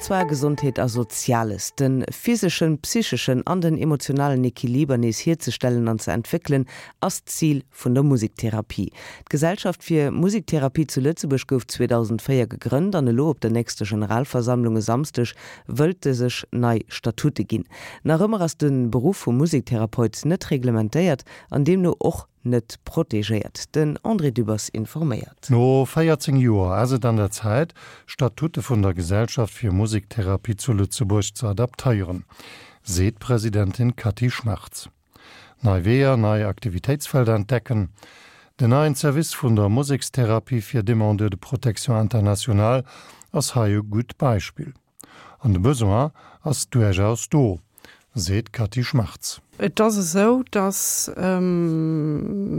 An zwar Gesondheet a Soziales. De physeschen, psycheschen an den emotionalen Equiliber nees hierzestellen an ze entwéckelen, ass d'Zil vun der Musektherapie. D'Gesellschaft fir Musektherapie zu Lëtzebuerg gouf 2004 gegrënnt an elo op der nächster Generalversammlung e Samsdeg wëllt se sech nei Statute ginn. Nach ëmmer ass de Beruff vum Musektherapeut net reglementéiert an deemno och net protegéiert. Den André Dübbers informéiert. No 14 Joer ass et an der Zäit, d'Statute vun der Gesellschaft fir Musektherapie zu Lëtzebuerg ze adaptéieren, seet d'Presidentin Cathy Schmartz. Nei Weeër, nei Aktivitéitsfelder entdecken, Den neien Service vun der Musekstherapie fir Demandeurs de protection internationale ass hei e gutt Beispill. An de Besoin ass duerchaus do, seet d'Cathy Schmartz. Et ass esou, datt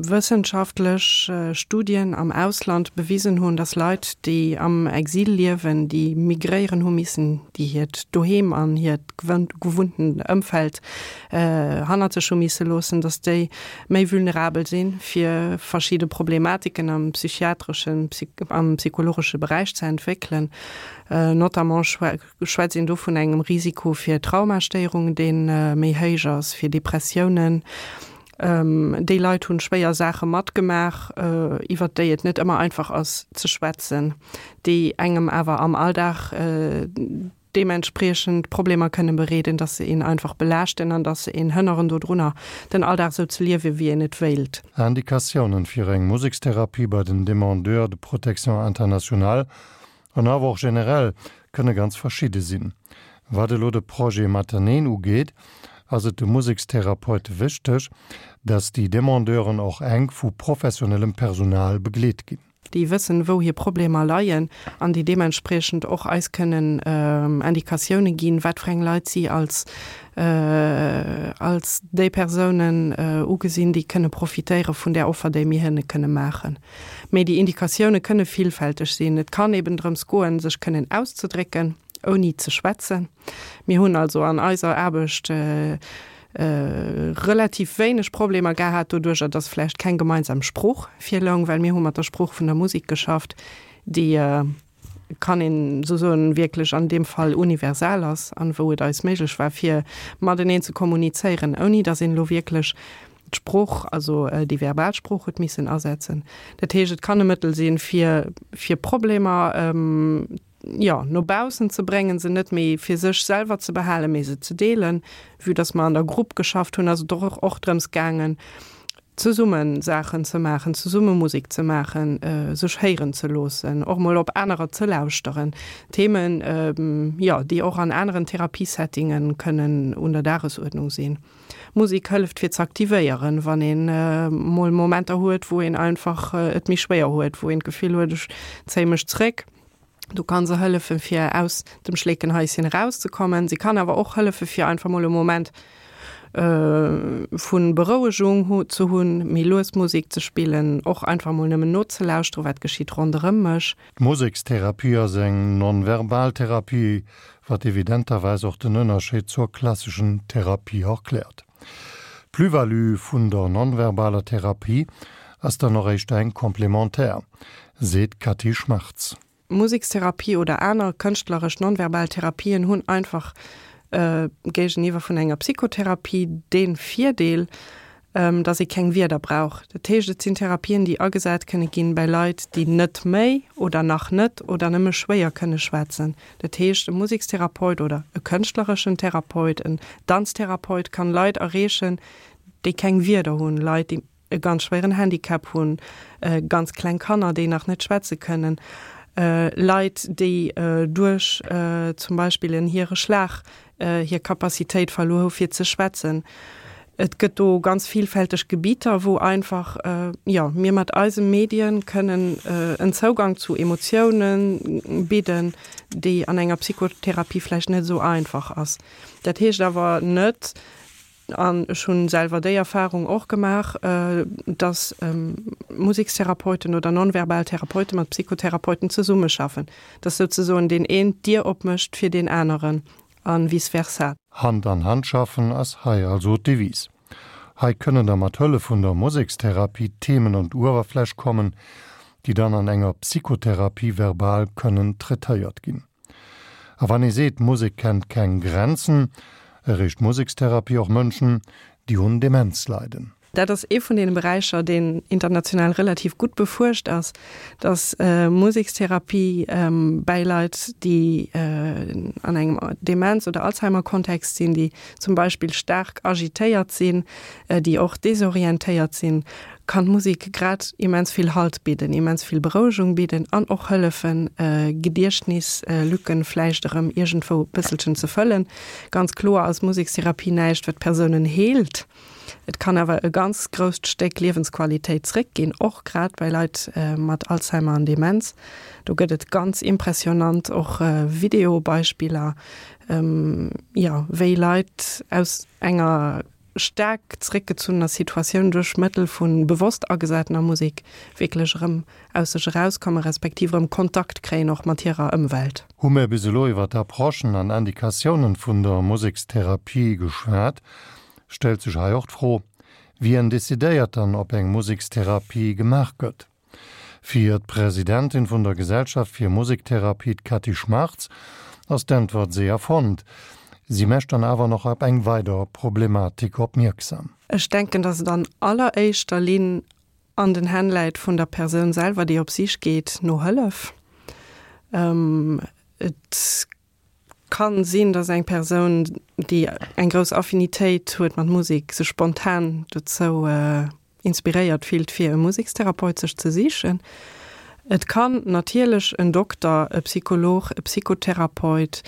wëssenschaftlech Studien am Ausland bewisen hunn, datt Leit, déi am Exil liewen, déi migréieren hu missen, déi hiert Doheem an hiert gewunntent Ëmfeld hannert sech hu misse loossen, datt déi méi vulnerabel si fir verschidde Problematiken am psychiatreschen, am psychologesche Beräich ze entwéckelen. Notamment schwätzt een do vun engem Risiko fir Traumastéierungen, dee méi héich ass, fir Depressiounen. Déi Leit hunn schwéier Saache matgemaach, iwwert déi et net ëmmer einfach ass ze schwätzen, déi engem awer am Alldag deementspriechend Problemer kënne bereeden, dass se een einfach belaaschten an dass se een hënneren dodrunner, den Alldag esou ze liewen, wéi een et wéilt. Indikatiounen fir eng Musekstherapie bei den Demandeurs de protection internationale An awer och generell kënne ganz verschidde sinn. Wat elo de Projet Mateneen ugeet, ass et de Musekstherapeute wichteg, dass déi Demandeuren och enk vu professionellem Personal begleet ginn. Déi wëssen, wou hir Problemer leien an déi deementspriechend och eis kënnen Indikatioune ginn, wat fir eng Leit si als als déi Persounen ugesinn, déi kënne profitéiere vun där Offer, déi mir hinne kënne maachen. Mee déi Indikatioune kënne villfälteg sinn. Et kann eben drëms goen, sech kënnen auszedrécken, ouni ze schwätzen. Mir hunn also an eiser Aarbecht relativ wéineg Problemer gehat doduercher, dass vläicht keng gemeinsam Sprooch virloung, well mir hu mat der Sprooch vun der Musek geschafft, déi, kann een esou soen, wierklech an deem Fall universal ass an wou et eis méiglech war, fir mateneen ze kommunizéieren, ouni dass een elo wierklech d'Sprooch, also déi verbal Sprooch huet missen asetzen. Dat heescht, et kann e Mëttel sinn, fir, fir Problemer, jo, no baussen ze bréngen, se net méi fir sech selwer ze behalen, mee se ze deelen. Vue dass mer an der Grupp geschafft hunn, ass et och och drëms gaangen, zesumme Saachen ze maachen, zesumme Musek ze maachen, sech héieren ze loossen, och mol op anerer ze lauschteren. Themen, jo, déi och an aneren Therapiesettinge kënnen un der Dagesuerdnung sinn. Musek hëlleft fir ze aktivéieren, wann een mol Momenter huet, wou een einfach et méi schwéier huet, wou een d'Gefill huet, ech zéie mech zréck. Do kann se hëllefen, fir aus dem Schleekenhaischen erauszekommen. Se kann awer och hëllefen, fir einfach mol e Moment vu Berouegung ze hunn, méi lues Musek ze spillen, och einfach mol nëmmen nozelauschteren, wat geschitt ronderëm mech. D'Musekstherapie ass eng non-verbal Therapie, wat evidenterweis och den Ënnerscheed zur klasseschen Therapie erkläert. D'Plus-value vun der non-verbaler Therapie ass dann och éischter eng complémentaire, seet d'Cathy Schmartz. Musekstherapie oder aner kënschtleresch non-verbal Therapien hunn einfach géigeniwwer vun enger Psychotherapie dee Virdeel, dass ee keng Wierder brauch. Dat heescht, et sinn Therapien, déi agesat kënne ginn bäi Leit, déi net méi oder nach net oder nëmme schwéier kënne schwätzen. Dat heescht, e Musekstherapeut oder e kënschtlereschen Therapeut, en Danztherapeut kann Leit erreechen, déi keng Wierder hunn, Leit, déi e ganz schwéieren Handicap hunn, ganz kleng Kanner, déi nach net schwätze kënnen, Leit, déi duerch zum Beispill en Hiereschlag hir Capacitéit verluer hu fir ze schwätzen. Et gëtt do ganz vielfälteg Gebieter, wou einfach, jo, mir mat eise Medien kënnen en Zougang zu Emotiounen bidden, déi an enger Psychotherapie vläicht net esou einfach ass. Dat heescht awer net, an ech hu selwer déi Erfahrung och gemaach, dass Musekstherapeuten oder nonverbal Therapeute mat Psychotherapeuten zesummeschaffen, dass souzesoen deen een d'Dier opmécht fir deen aneren a vice versa. Hand an Hand schaffen ass hei also d'Devise. Hei kënnen da mat Hëllef vun der Musekstherapie Themen un d'Uewerfläch kommen, déi dann an enger Psychotherapie verbal kënnen traitéiert ginn. A wann ee seet, Musek kennt keng Grenzen, erreecht Musekstherapie och Mënschen, déi un Demenz leiden. Dat ass ee vun deene Beräicher, deen international relativ gutt befuerscht ass, dass Musekstherapie bäi Leit, déi an engem Demenz oder Alzheimer-Kontext sinn, déi zum Beispill staark agitéiert sinn, déi och desorientéiert sinn, kann d'Musek grad immens vill Halt bidden, immens vill Berouegung bidden an och hëllefen, Gediechtnislücken vläicht erëm iergendwou e bësselchen ze fëllen. Ganz kloer ass Musekstherapie näischt, wat Persounen heelt. Et kann awer e ganz grousst Stéck Liewensqualitéit zréckginn, och grad bei Leit mat Alzheimer an Demenz. Do gëtt et ganz impressionant och Videobeispiller, jo, wéi Leit aus enger staark zréckgezunnener Situatioun duerch Mëttel vu bewosst agesatener Musek wierklech erëm aus sech erauskommen, respektiv erëm Kontakt kréien och mat hirer Ëmwelt. Hu mir bis elo iwwer d'Approchen an Indikatiounen vun der Musekstherapie geschwat, stellt sech hei och d'Fro, Wien decidéiert dann, ob eng Musekstherapie gemaach gëtt? Fir d'Presidentin vun der Gesellschaft fir Musektherapie, d'Cathy Schmartz, ass d'Äntwert séier fonnt. Si mescht dann awer nach op eng weider Problematik opmierksam. Ech denken, datt et an alleréischter Linn an den Hänn läit vun der Persoun selwer, déi op Sich geet no Hëllef. Et Kann sinn, dass eng Persoun, déi eng grouss Affinitéit huet mat Musek, sech spontan dozou inspiréiert fillt, fir e Musekstherapeut sech ze sichen. Et kann natierlech en Dokter, e Psycholog, e Psychotherapeut,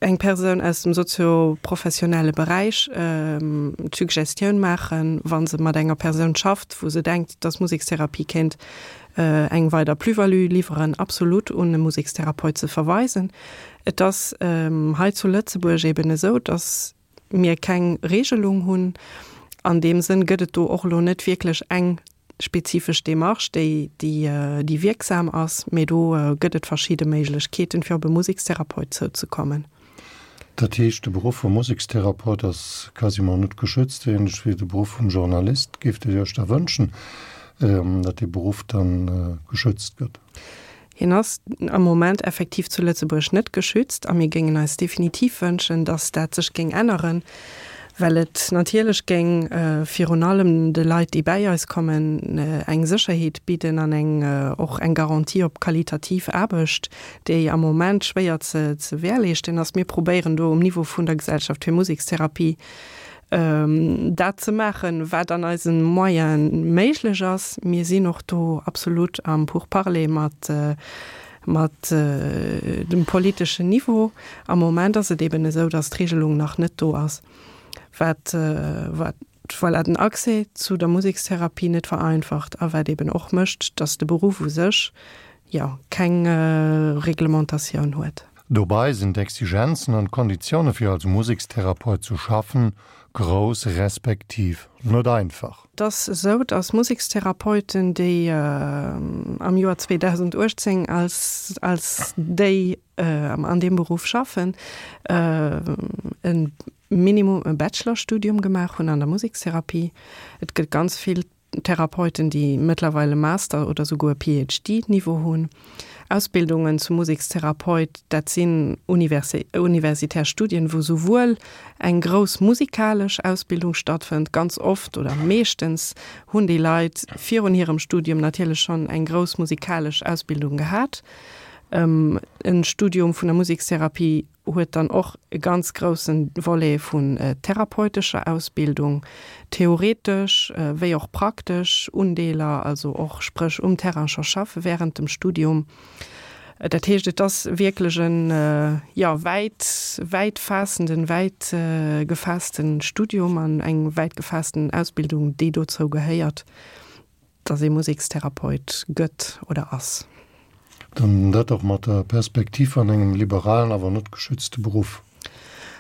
eng Persoun aus dem sozio-professionelle Beräich d'Suggestioun maachen, wa se mat enger Persoun schafft, wou se denkt, dass Musekstherapie kéint eng weider Plus-value liwweren, absolut un e Musekstherapeut ze verweisen. Et ass hei zu Lëtzebuerg eben esou, dass mir keng Regelung hunn. An deem Sënn gëtt et do och elo net wierklech eng spezifesch Démarche, déi, déi wierksam ass, mee do gëtt et verschidde Méiglechkeeten, fir op e Musekstherapeut zouzekommen. Dat heescht, de Beruff vum Musekstherapeut ass quasiment net geschützt, ähnlech wéi de Beruff vum Journalist. Géift Dir Iech da wënschen, datt dee Beruff dann geschützt gëtt? Hien ass am Moment effektiv zu Lëtzebuerg net geschützt a mir géingen eis definitiv wënschen, dass dat sech géing änneren, well et natierlech géing virun allem de Leit, déi bäi eis kommen, eng Sécherheet bidden an eng och eng Garantie op qualitativ Aarbecht, déi am Moment schwéier ze währleeschten ass. Mir probéieren do um Niveau vun der Gesellschaft fir Musekstherapie dat ze maachen, wat an eise Moyene méiglech ass. Mir sinn och do absolut am Pourparler mat, mat dem politeschen Niveau. Am Moment ass et eben esou, dass d'Regelung nach net do ass, wat, wat, voilà, den Accès zu der Musekstherapie net vereinfacht a wat eben och mécht, dass de Beruff u sech, jo, keng Reglementatioun huet. Dobei sinn d'Exigenzen an d'Konditioune fir als Musekstherapeut zu schaffen grouss respektiv net einfach. Et ass esou, dass Musekstherapeuten, déi am Joer 2018 als als déi an deem Beruff schaffen, e Minimum e Bachelorstudium gemaach hunn an der Musekstherapie. Et gëtt ganz vill Therapeuten, déi mëttlerweil e Master oder souguer e PhD-Niveau hunn. Ausbildungen zum Musekstherapeut, dat sinn universitär Studien, wou souwuel eng grouss musikalesch Ausbildung stattfënnt, ganz oft oder meeschtens hunn déi Leit virun hirem Studium natierlech schonn eng grouss musikalesch Ausbildung gehat. E Studium vun der Musekstherapie huet dann och e ganz groussen Volet vun therapeutescher Ausbildung, theoretesch wéi och praktesch Undeeler, also och spréch um Terrain scho schaffe während dem Studium. Dat heescht, et ass wierklech en, jo, wäit, wäit faassenden, wäit gefaassten Studium an eng wäit gefaassten Ausbildung, déi dozou gehéiert. Dass ee Musekstherapeut gëtt oder ass. Dann dat och mat der Perspektiv an engem liberalen, awer net geschützte Beruff.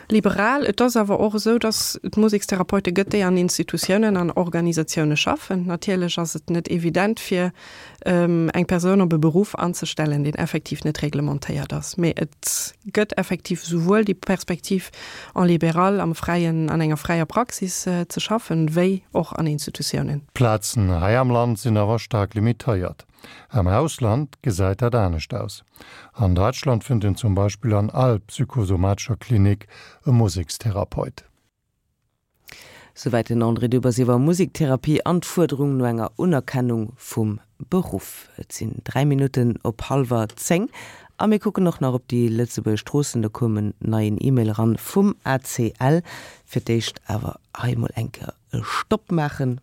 Liberal. Et ass awer och esou, dass et Musekstherapeute gëtt, déi an Institutiounen an Organisatioune schaffen. Natierlech ass et net evident, fir eng Persoun op e Beruff anzestellen, deen effektiv net reglementéiert ass. Mee et gëtt effektiv souwuel déi Perspektiv, en libéral, am Fräien, an enger fräier Praxis ze schaffen, wéi och an Institutiounen. D'Plazen hei am Land sinn awer staark limitéiert. Am Ausland gesäit dat anescht aus. An Däitschland fënnt een zum Beispill an all psychosomatescher Klinik e Musekstherapeut. Souwäit den André Dübbers iwwer Musiktherapie an d'Fuerderung no enger Unerkennung vum Beruff. Et sinn 3 Minutten op hallwer 10 a mir kucken och nach op déi Lëtzebuerger Stroossen. Do koum en neien E-Mail eran vum ACL. Fir d'éischt awer hei emol eng Kéier e Stopp maachen.